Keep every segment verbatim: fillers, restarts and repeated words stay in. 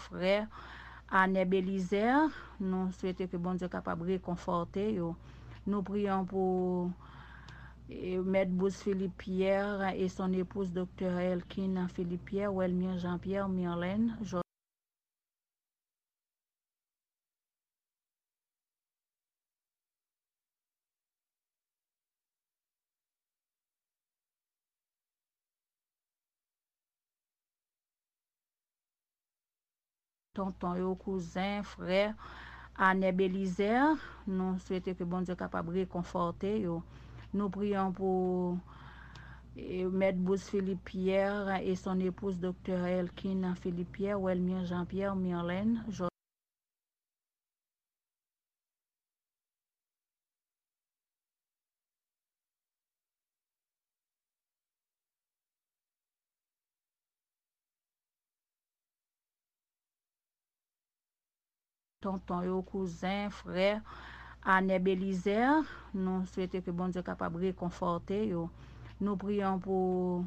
Frè Anè Belizaire, nou swete ke Bondye kapab rekonfòte yo. Nou priyon pou, e, Mèt Bruce Philippe Pierre et son épouse, Doktè Elkin Philippe Pierre, Welmir Jean Pierre, Mirlène, tonton yo, kouzen, frè Anè Belizaire, nou swete ke Bondye kapab rekonfòte yo. Nou priyon pou, e, Mèt Bruce Philippe Pierre et son épouse, Doktè Elkin Philippe Pierre, Welmir Jean Pierre, Mirlène, tonton yo, kouzen, frè Anè Belizaire, nou swete ke Bondye kapab rekonfòte yo. Nou priyon pou,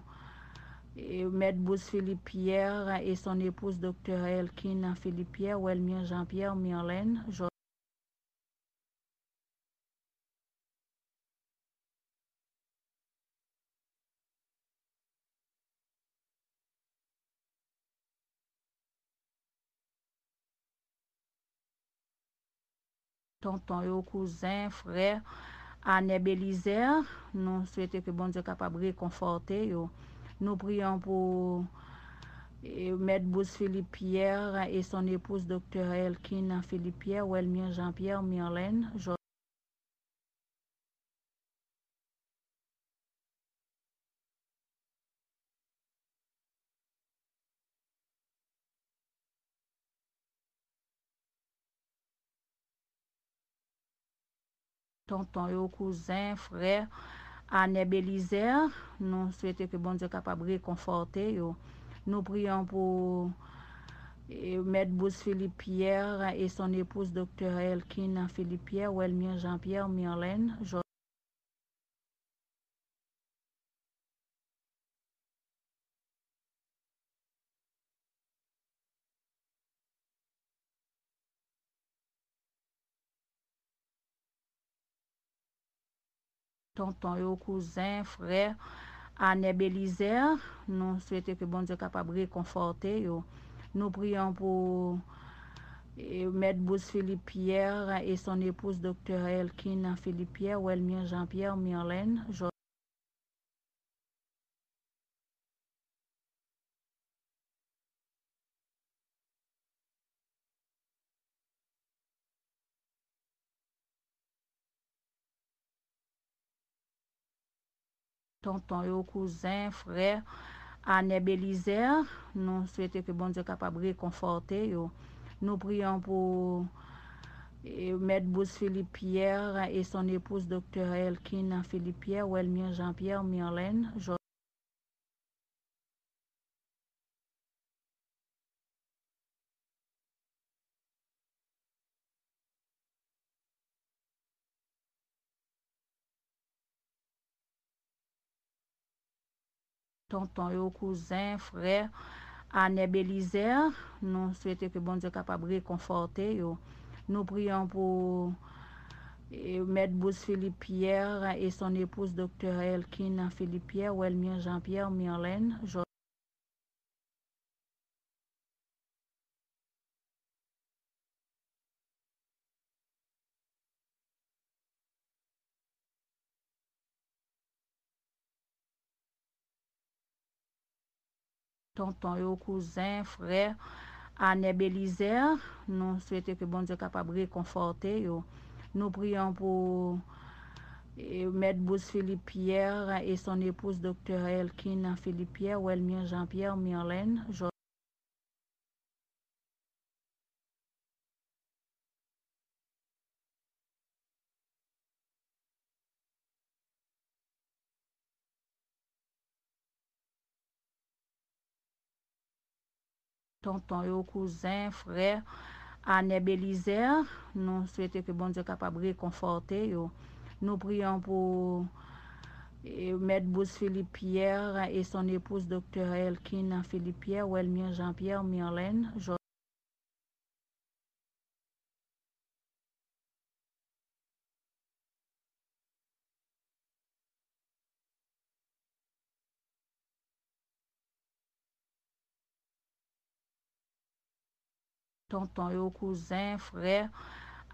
e, Mèt Bruce Philippe Pierre et son épouse, Doktè Elkin Philippe Pierre, Welmir Jean Pierre, Mirlène, tonton yo, kouzen, frè Anè Belizaire, nou swete ke Bondye kapab rekonfòte yo. Nou priyon pou, e, Mèt Bruce Philippe Pierre et son épouse, Doktè Elkin Philippe Pierre, Welmir Jean Pierre, Mirlène, tonton yo, kouzen, frè Anè Belizaire, nou swete ke Bondye kapab rekonfòte yo. Nou priyon pou, e, Mèt Bruce Philippe Pierre et son épouse, Doktè Elkin Philippe Pierre, Welmir Jean Pierre, Mirlène, tonton yo, kouzen, frè Anè Belizaire, nou swete ke Bondye kapab rekonfòte yo. Nou priyon pou, e, Mèt Bruce Philippe Pierre et son épouse, Doktè Elkin Philippe Pierre, Welmir Jean Pierre, Mirlène, tonton yo, kouzen, frè Anè Belizaire, nou swete ke Bondye kapab rekonfòte yo. Nou priyon pou, e, Mèt Bruce Philippe Pierre et son épouse, Doktè Elkin Philippe Pierre, Welmir Jean Pierre, Mirlène, tonton yo, kouzen, frè Anè Belizaire, nou swete ke Bondye kapab rekonfòte yo. Nou priyon pou, e, Mèt Bruce Philippe Pierre et son épouse, Doktè Elkin Philippe Pierre, Welmir Jean Pierre, Mirlène, tonton yo, kouzen, frè Anè Belizaire, nou swete ke Bondye kapab rekonfòte yo. Nou priyon pou, e, Mèt Bruce Philippe Pierre et son épouse, Doktè Elkin Philippe Pierre, Welmir Jean Pierre, Mirlène, tonton yo, kouzen, frè Anè Belizaire, nou swete ke Bondye kapab rekonfòte yo. Nou priyon pou, e, Mèt Bruce Philippe Pierre et son épouse, Doktè Elkin Philippe Pierre, Welmir Jean Pierre, Mirlène, tonton yo, kouzen, frè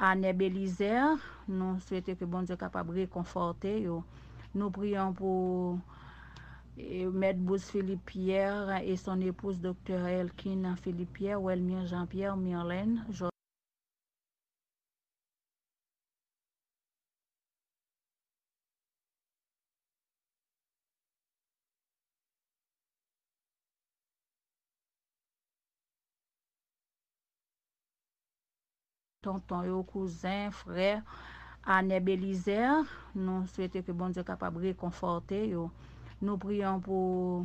Anè Belizaire. Nou swete ke Bondye kapab rekonfòte yo. Nou priyon pou eh, Mèt Bruce Philippe Pierre et son épouse Doktè Elkin Philippe Pierre, Welmir Jean Pierre, Mirlène, tonton yo, kouzen, frè Anè Belizaire. Nou swete ke Bondye kapab rekonfòte yo. Nou priyon pou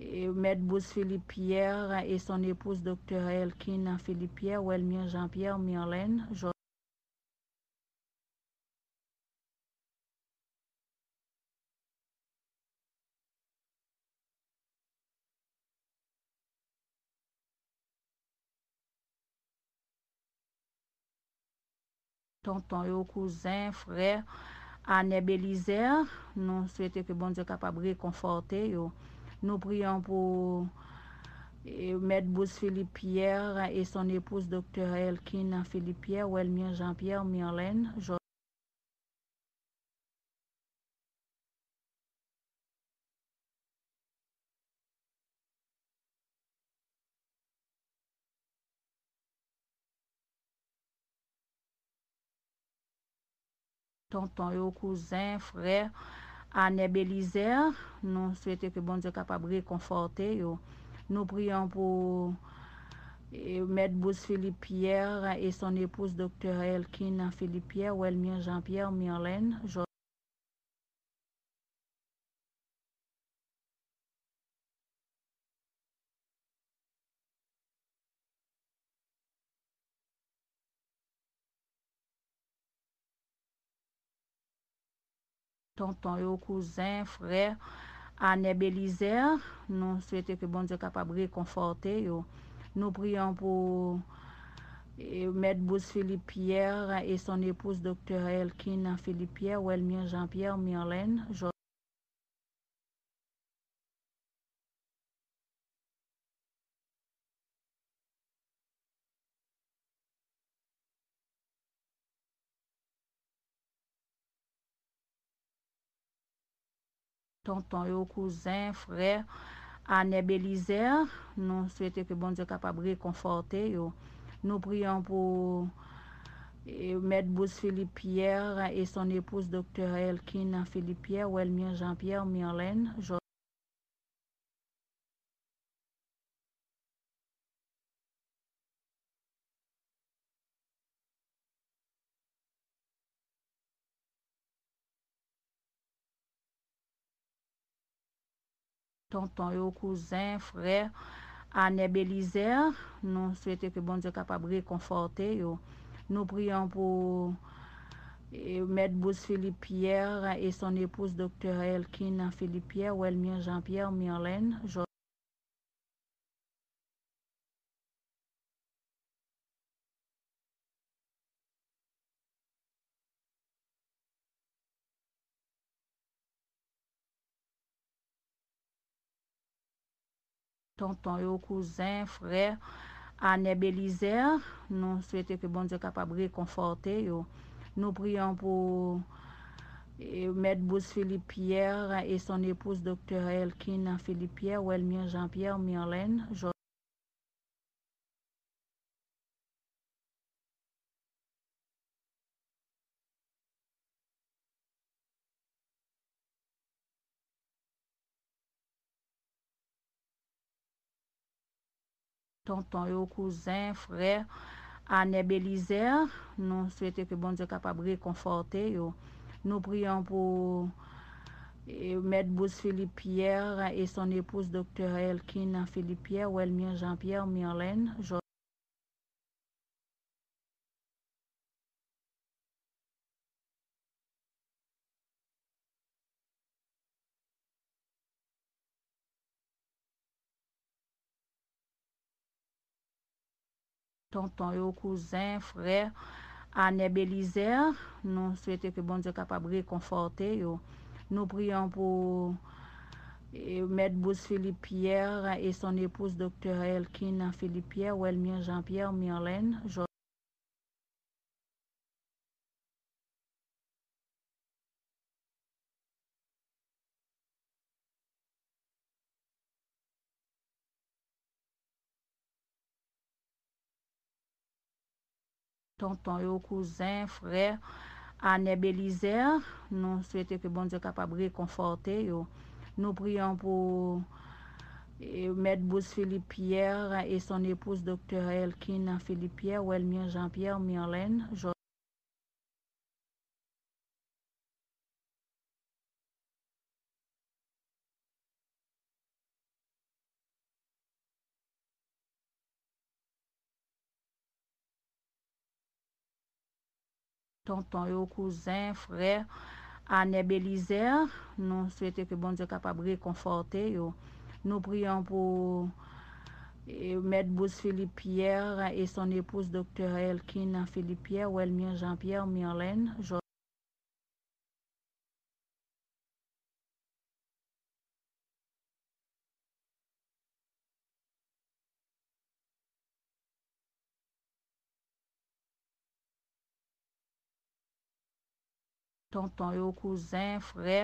eh, Mèt Bruce Philippe Pierre et son épouse Doktè Elkin Philippe Pierre, Welmir Jean Pierre, Mirlène, tonton yo, kouzen, frè Anè Belizaire. Nou swete ke Bondye kapab rekonfòte yo. Nou priyon pou eh, Mèt Bruce Philippe Pierre et son épouse Doktè Elkin Philippe Pierre, Welmir Jean Pierre, Mirlène, tonton yo, kouzen, frè Anè Belizaire. Nou swete ke Bondye kapab rekonfòte yo. Nou priyon pou eh, Mèt Bruce Philippe Pierre et son épouse Doktè Elkin Philippe Pierre, Welmir Jean Pierre, Mirlène, tonton yo, kouzen, frè Anè Belizaire. Nou swete ke Bondye kapab rekonfòte yo. Nou priyon pou eh, Mèt Bruce Philippe Pierre et son épouse Doktè Elkin Philippe Pierre, Welmir Jean Pierre, Mirlène, tonton yo, kouzen, frè Anè Belizaire. Nou swete ke Bondye kapab rekonfòte yo. Nou priyon pou eh, Mèt Bruce Philippe Pierre et son épouse Doktè Elkin Philippe Pierre, Welmir Jean Pierre, Mirlène, tonton yo, kouzen, frè Anè Belizaire. Nou swete ke Bondye kapab rekonfòte yo. Nou priyon pou eh, Mèt Bruce Philippe Pierre et son épouse Doktè Elkin Philippe Pierre, Welmir Jean Pierre, Mirlène, tonton yo, kouzen, frè Anè Belizaire. Nou swete ke Bondye kapab rekonfòte yo. Nou priyon pou eh, Mèt Bruce Philippe Pierre et son épouse Doktè Elkin Philippe Pierre, Welmir Jean Pierre, Mirlène, tonton yo, kouzen, frè Anè Belizaire. Nou swete ke Bondye kapab rekonfòte yo. Nou priyon pou eh, Mèt Bruce Philippe Pierre et son épouse Doktè Elkin Philippe Pierre, Welmir Jean Pierre, Mirlène, tonton yo, kouzen, frè Anè Belizaire. Nou swete ke Bondye kapab rekonfòte yo. Nou priyon pou E, Mèt Bruce Philippe Pierre et son épouse, Doktè Elkin Philippe Pierre, Welmir Jean Pierre, Mirlène, tonton yo, kouzen, frè, Anè Belizaire, nou swete ke Bondye kapab rekonfòte yo. Nou priyon pou, e, Mèt Bruce Philippe Pierre et son épouse, Doktè Elkin Philippe Pierre, Welmir Jean Pierre, Mirlène, tonton yo, kouzen, frè, Anè Belizaire, nou swete ke Bondye kapab rekonfòte yo. Nou priyon pou, e, Mèt Bruce Philippe Pierre et son épouse, Doktè Elkin Philippe Pierre, Welmir Jean Pierre, Mirlène, tonton yo, kouzen, frè,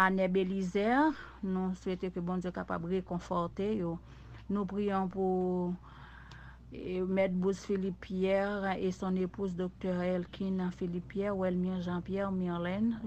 Anè Belizaire, nou swete ke Bondye kapab rekonfòte yo. Nou priyon pou, e, Mèt Bruce Philippe Pierre et son épouse, Doktè Elkin Philippe Pierre, Welmir Jean Pierre, Mirlène,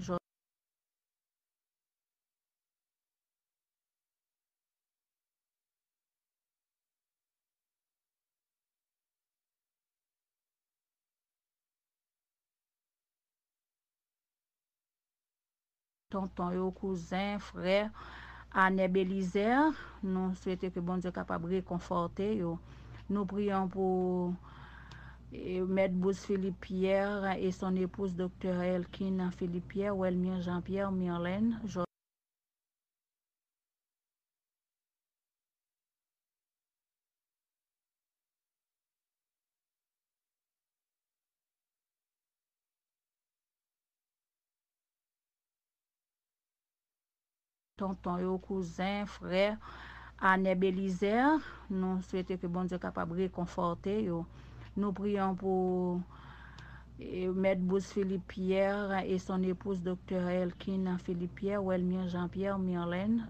tonton yo, kouzen, frè, Anè Belizaire, nou swete ke Bondye kapab rekonfòte yo. Nou priyon pou, e, Mèt Bruce Philippe Pierre et son épouse, Doktè Elkin Philippe Pierre, Welmir Jean Pierre, Mirlène, tonton yo, kouzen, frè, Anè Belizaire, nou swete ke Bondye kapab rekonfòte yo. Nou priyon pou, e, Mèt Bruce Philippe Pierre et son épouse, Doktè Elkin Philippe Pierre, Welmir Jean Pierre, Mirlène,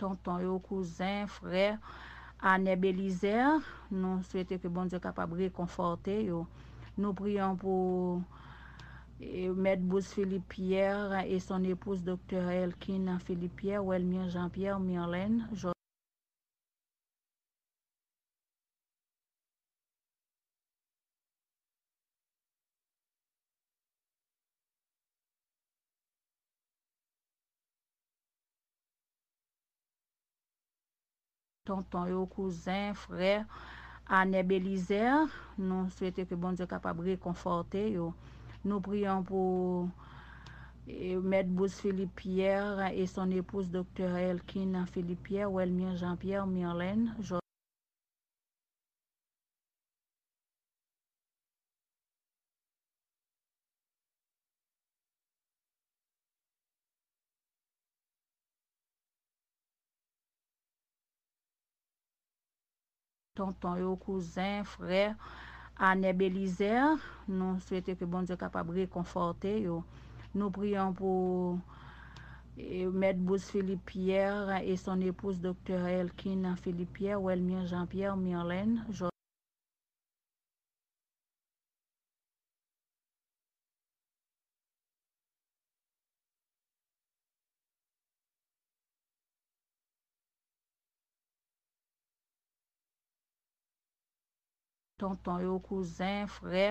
tonton yo, kouzen, frè, Anè Belizaire, nou swete ke Bondye kapab rekonfòte yo. Nou priyon pou, e, Mèt Bruce Philippe Pierre et son épouse, Doktè Elkin Philippe Pierre, Welmir Jean Pierre, Mirlène, tonton yo, kouzen, frè, Anè Belizaire, nou swete ke Bondye kapab rekonfòte yo. Nou priyon pou, e, Mèt Bruce Philippe Pierre et son épouse, Doktè Elkin Philippe Pierre, Welmir Jean Pierre, Mirlène, tonton yo, kouzen, frè, Anè Belizaire, nou swete ke Bondye kapab rekonfòte yo. Nou priyon pou, e, Mèt Bruce Philippe Pierre et son épouse, Doktè Elkin Philippe Pierre, Welmir Jean Pierre, Mirlène, tonton yo, kouzen, frè,